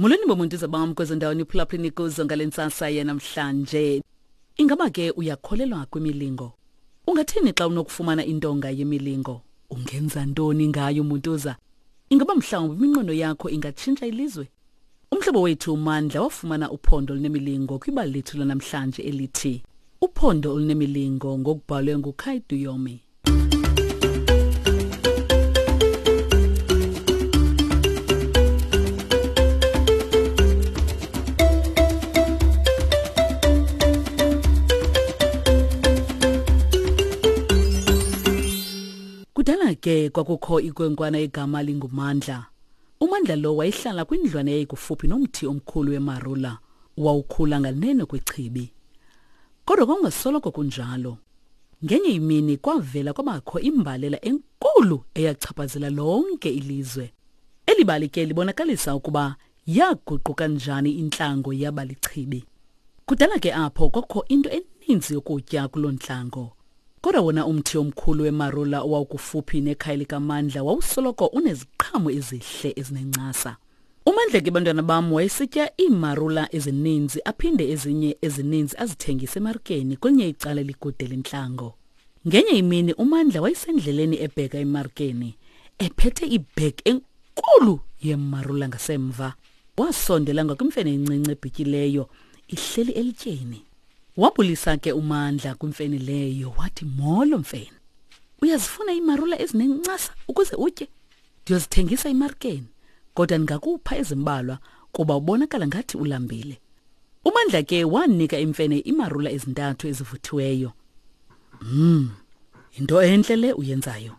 Molweni bomuntuza bam kwezo ndawo niphulaphuleni kuzo ngale ntsasa yanamhlanje. Ingaba ke uyakholelwa kwimilingo? Ungathini xa unokufumana intonga yemilingo? Ungenza ntoni ngayo muntuza? Ingaba mhlawumbi iminqweno yakho ingatshintsha ilizwe? Umhlobo wethu uMandla wafumana uphondo olunemilingo kwibali lethu lanamhlanje elithi Uphondo olunemilingo ngokubhalwe nguKai Duyomi. Kudala ke kwakukho ikwenkwana egama linguMandla. UMandla lo wayehlala kwindlwana eyayikufuphi nomthi omkhulu wemarula owawukhula nganeno kwechibi. Kodwa kwakungasoloko kunjalo. Ngenye imini kwavela kwabakho imbalela enkulu eyachaphazela lonke ilizwe. Eli bali ke libonakalisa ukuba yaguquka njani intlango yaba lichibi. Kudala ke apho kwakukho into eninzi yokutya kuloo ntlango. Kodwa wona umthi omkhulu wemarula owawukufuphi nekhaya likaMandla wawusoloko uneziqhamo ezihle ezinencasa. UMandla ke bantwana bam wayesitya iimarula ezininzi aphinde ezinye ezininzi azithengise emarikeni kwelinye icala elikude lentlango. Ngenye imini uMandla wayesendleleni ebheka emarikeni ephethe ibhegi enkulu yemarula ngasemva. Wasondela ngakwimfene encinci ebhityileyo ihleli elityeni. Wabulisa ke uMandla kwimfene leyo wathi molo mfene. Uyazifuna iimarula ezinencasa ukuze utye? Ndiyozithengisa emarikeni kodwa ndingakupha ezimbalwa kuba ubonakala ngathi ulambile. UMandla ke wanika imfene imarula ezintathu ezivuthiweyo. Mm. Into entle le uyenzayo.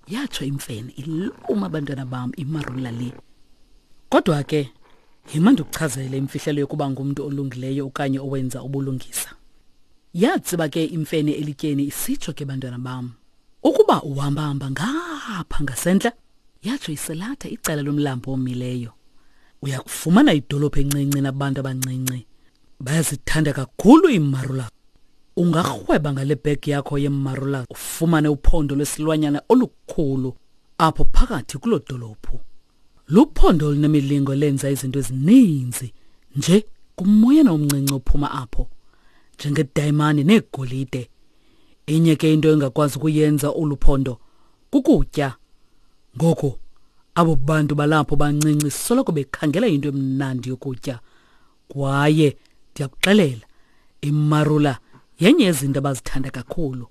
Yatsho imfene iluma abantwana bam imarula le. Kodwa ke yima ndikuchazele imfihlelo yokuba ngumntu olungileyo okanye owenza ubulungisa. Yatsiba ke imfene elityeni isitsho ke bantwana bam. Ukuba uhamba-hamba ngapha ngasentla, yatsho iselatha icala lomlambo omileyo. Uya kufumana idolophu encinci nabantu abancinci. Bayazithanda kakhulu iimarula. Ungarhweba ngale bhegi yakho yeemarula ufumane uphondo lwesilwanyana olukhulu apho phakathi kuloo dolophu. Luphondo olunemilingo lenza izinto ezininzi nje kumoyana omncinci ophuma apho njengedayimani neegolide. Inye ke into engakwazi ukuyenza olu phondo kukutya. Ngoku abo bantu balapho bancinci soloko bekhangela into emnandi yokutya. Kwaye ndiyakuxelela, imarula yenye yezinto abazithanda kakhulu.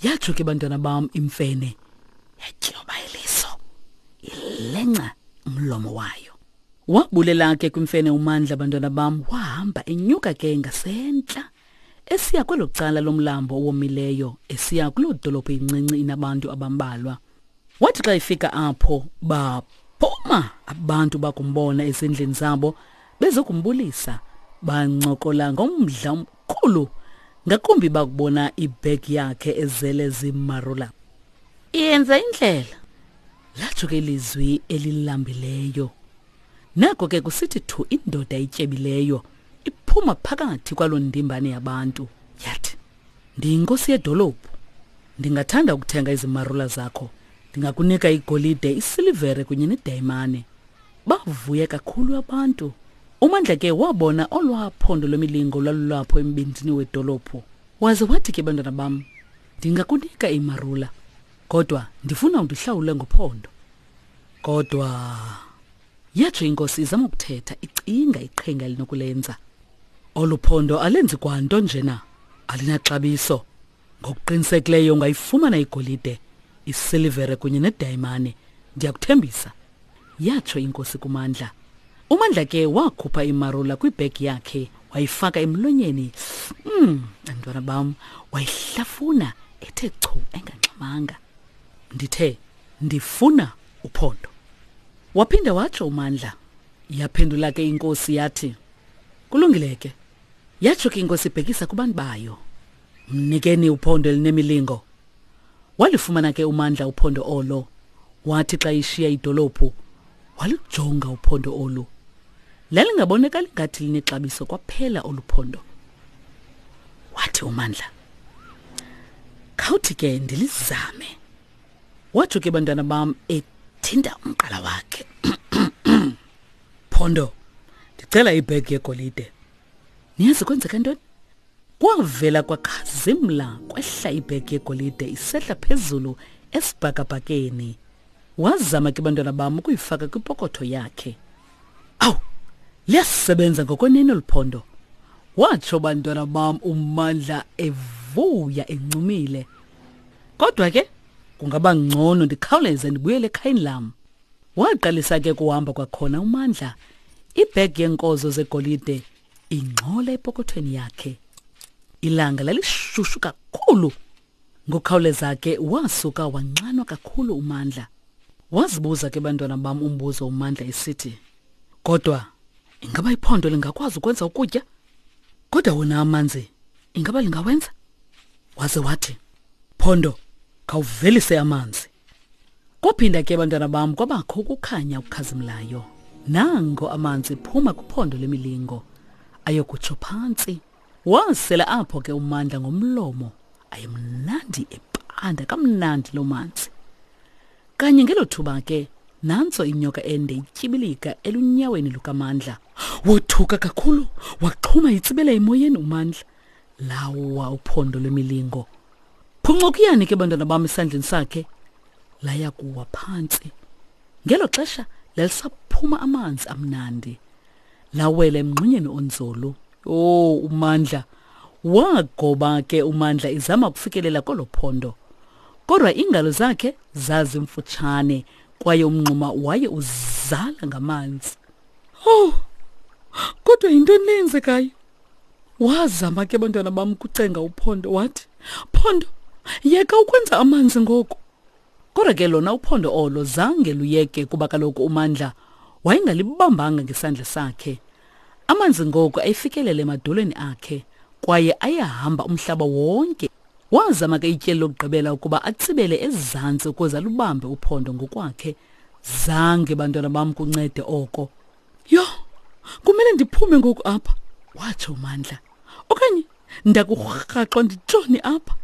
Yatsho ke bantwana bam imfene yatyoba iliso ilenca umlomo wayo. Wabulela ke kwimfene uMandla bantwana bam wahamba enyuka ke ngasentla esiya kwelo cala lomlambo owomileyo esiya kuloo dolophu incinci inabantu abambalwa. Wathi xa efika apho baphuma abantu bakumbona ezindlini zabo bezokumbulisa bancokola ngomdla omkhulu ngakumbi bakubona ibhegi yakhe ezele zimarula. Yenza indlela latsho ke ilizwi elilambileyo. Nako ke kusithi thu indoda ityebileyo iphuma phakathi kwaloo ndimbane yabantu yathi ndiyinkosi yedolophu ndingathanda ukuthenga izimarula zakho ndingakunika igolide isilivere kunye nedayimane bavuya kakhulu abantu umandla ke wabona olwaa phondo lwemilingo lwalulapho embindini wedolophu waze wathi ke bantwana bam ndingakunika imarula kodwa ndifuna undihlawule ngophondo kodwa yatsho inkosi izama ukuthetha icinga iqhinga elinokulenza olu phondo alenzi kwanto njena alinaxabiso ngokuqinisekileyo ungayifumana igolide isilivere kunye nedayimane ndiyakuthembisa yatsho inkosi kumandla umandla ke wakhupha imarula kwibhegi yakhe wayifaka emlonyeni mm bantwana bam wayihlafuna ethe chu engangxamanga ndithe ndifuna uphondo waphinda watsho umandla yaphendula ke inkosi yathi kulungile ke yatsho ke inkosi ibhekisa kubantu bayo mnikeni uphondo elinemilingo walifumana ke umandla uphondo olo wathi xa ishiya idolophu walujonga uphondo olu lalingabonakali ngathi linexabiso kwaphela olu phondo wathi umandla khawuthi ke ndilizame watsho ke bantwana bam ethinta umqala wakhe. Phondo, ndicela ibhegi yegolide. Niyazi kwenzeka ntoni? Kwavela kwakhazimla kwehla ibhegi yegolide isehla phezulu esibhakabhakeni. Wazama ke bantwana bam ukuyifaka kwipokotho yakhe. Awu, liyasebenza ngokwenene olu phondo. Watsho bantwana bam uMandla evuya encumile. Kodwa ke kungaba ngcono ndikhawuleze ndibuyele ekhayeni lam. Waqalisa ke kuhamba kwakhona uMandla. Ibhegi yeenkozo zegolide ingxola epokothweni yakhe. Ilanga lalishushu kakhulu. Ngokukhawuleza ke wasuka wanxanwa kakhulu uMandla. Wazibuza ke bantwana bam umbuzo uMandla esithi, Kodwa ingaba iphondo lingakwazi ukwenza ukutya? Kodwa wona amanzi ingaba lingawenza? Waze wathi, Phondo, khawuvelise amanzi. Kwaphinda ke bantwana bam kwabakho ukukhanya okukhazimlayo. Nango amanzi phuma kuphondo lemilingo ayokutsho phantsi. Wasela apho ke uMandla ngomlomo. Ayemnandi epanda kamnandi loo manzi. Kanye ngelo thuba ke nantso inyoka ende ityibilika elunyaweni lukaMandla. Wothuka kakhulu waxhuma itsibela emoyeni uMandla. Lawa uphondo lwemilingo. Phuncukiyani ke bantwana bam esandleni sakhe. Laya kuwa phantsi. Ngelo xesha lalisaphuma amanzi amnandi. Lawela emngxunyeni onzulu. Oh, uMandla. Wagoba ke uMandla izama ukufikelela kolo phondo. Kodwa iingalo zakhe zazimfutshane kwaye umngxuma waye uzala ngamanzi. Oh, kodwa yintoni le yenzekayo? Wazama ke bantwana bam ukucenga uPhondo wathi, Phondo, yeka ukwenza amanzi ngoku. Kodwa ke lona uphondo olo zange luyeke kuba kaloku uMandla wayengalibambanga ngesandla sakhe. Amanzi ngoku ayefikelele emadolweni akhe kwaye ayehamba umhlaba wonke. Wazama ke ityeli lokugqibela ukuba atsibele ezantsi ukuze alubambe uphondo ngokwakhe. Zange bantwana bam kuncede oko. Yho, kumele ndiphume ngoku apha, watsho uMandla. Okanye ndakurhaxwa nditshone apha.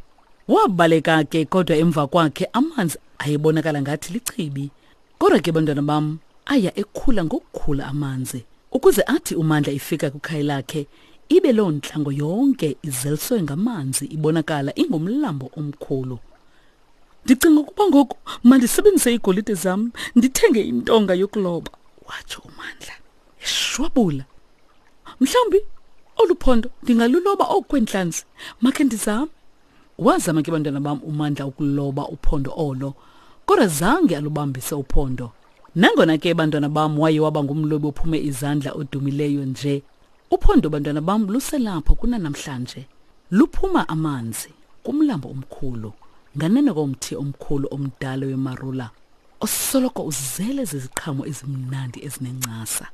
Wabaleka ke kodwa emva kwakhe amanzi ayebonakala ngathi lichibi. Kodwa ke bantwana bam aya ekhula ngokukhula amanzi ukuze athi uMandla ifika kwikhaya lakhe ibe loo ntlango yonke izeliswe ngamanzi ibonakala ingumlambo omkhulu. Ndicinga ukuba ngoku mandisebenzise iigolide zam ndithenge intonga yokuloba, watsho uMandla eshwabula. Mhlawumbi olu phondo ndingaluloba oku kweentlanzi, makhe ndizame. Wazama ke bantwana bam uMandla ukuloba uphondo olo, kodwa zange alubambise uphondo. Nangona ke bantwana bam waye waba ngumlobi ophume izandla odumileyo nje, uphondo bantwana bam luselapho kunanamhlanje. Luphuma amanzi kumlambo omkhulu nganeno komthi omkhulu omdala wemarula osoloko uzele ziziqhamo ezimnandi ezinencasa.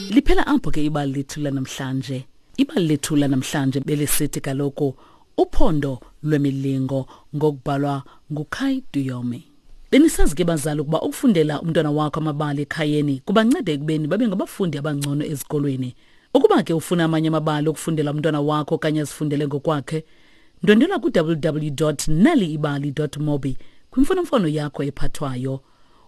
Liphela apho ke ibali lethu lanamhlanje. Ibali lethu lanamhlanje belisithi kaloku uphondo lwemilingo ngokubhalwa nguKai Duyome. Benisazi ke bazali ukuba ukufundela umntwana wakho amabali ekhayeni kubanceda ekubeni babe ngabafundi abangcono ezikolweni. Ukuba ke ufuna amanye amabali okufundela umntwana wakho okanye azifundele ngokwakhe, ndwendwela ku-www.naliibali.mobi kwimfonomfono yakho ephathwayo.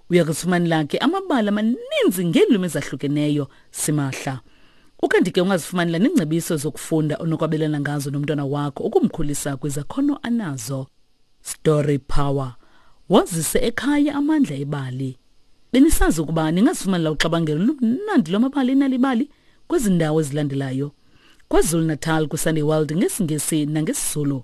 Uya kuzifumanela ke amabali amaninzi ngeelwimi ezahlukeneyo simahla. Ukanti ke ungazifumanela neengcebiso zokufunda onokwabelana ngazo nomntwana wakho ukumkhulisa kwizakhono anazo. Story Power. Wazise ekhaya amandla ebali. Benisazi ukuba ningazifumanela uxabangelo lumnandi lwamabali enalibali kwezi ndawo ezilandelayo. KwaZulu-Natal kwiSunday World ngesiNgesi nangesiZulu.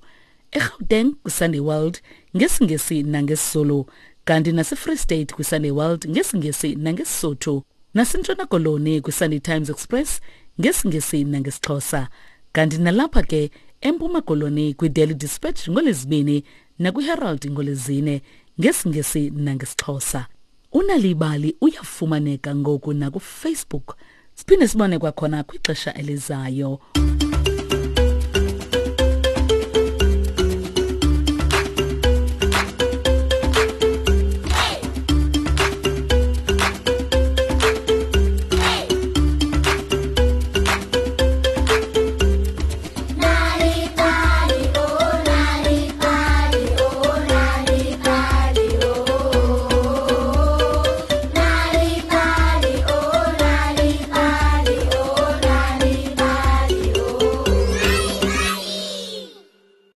eGauteng kwiSunday World ngesiNgesi nangesiZulu. Kanti naseFree State kwiSunday World ngesiNgesi nangeSisotho. NaseNtshona Koloni kwiSunday Times Express ngesiNgesi nangesiXhosa. Kanti nalapha ke eMpuma Koloni kwiDaily Dispatch ngoLwezibini nakwiHerald ngoLwezine ngesiNgesi nangesiXhosa. Unalibali uyafumaneka ngoku nakuFacebook. Siphinde sibone kwakhona kwixesha elizayo.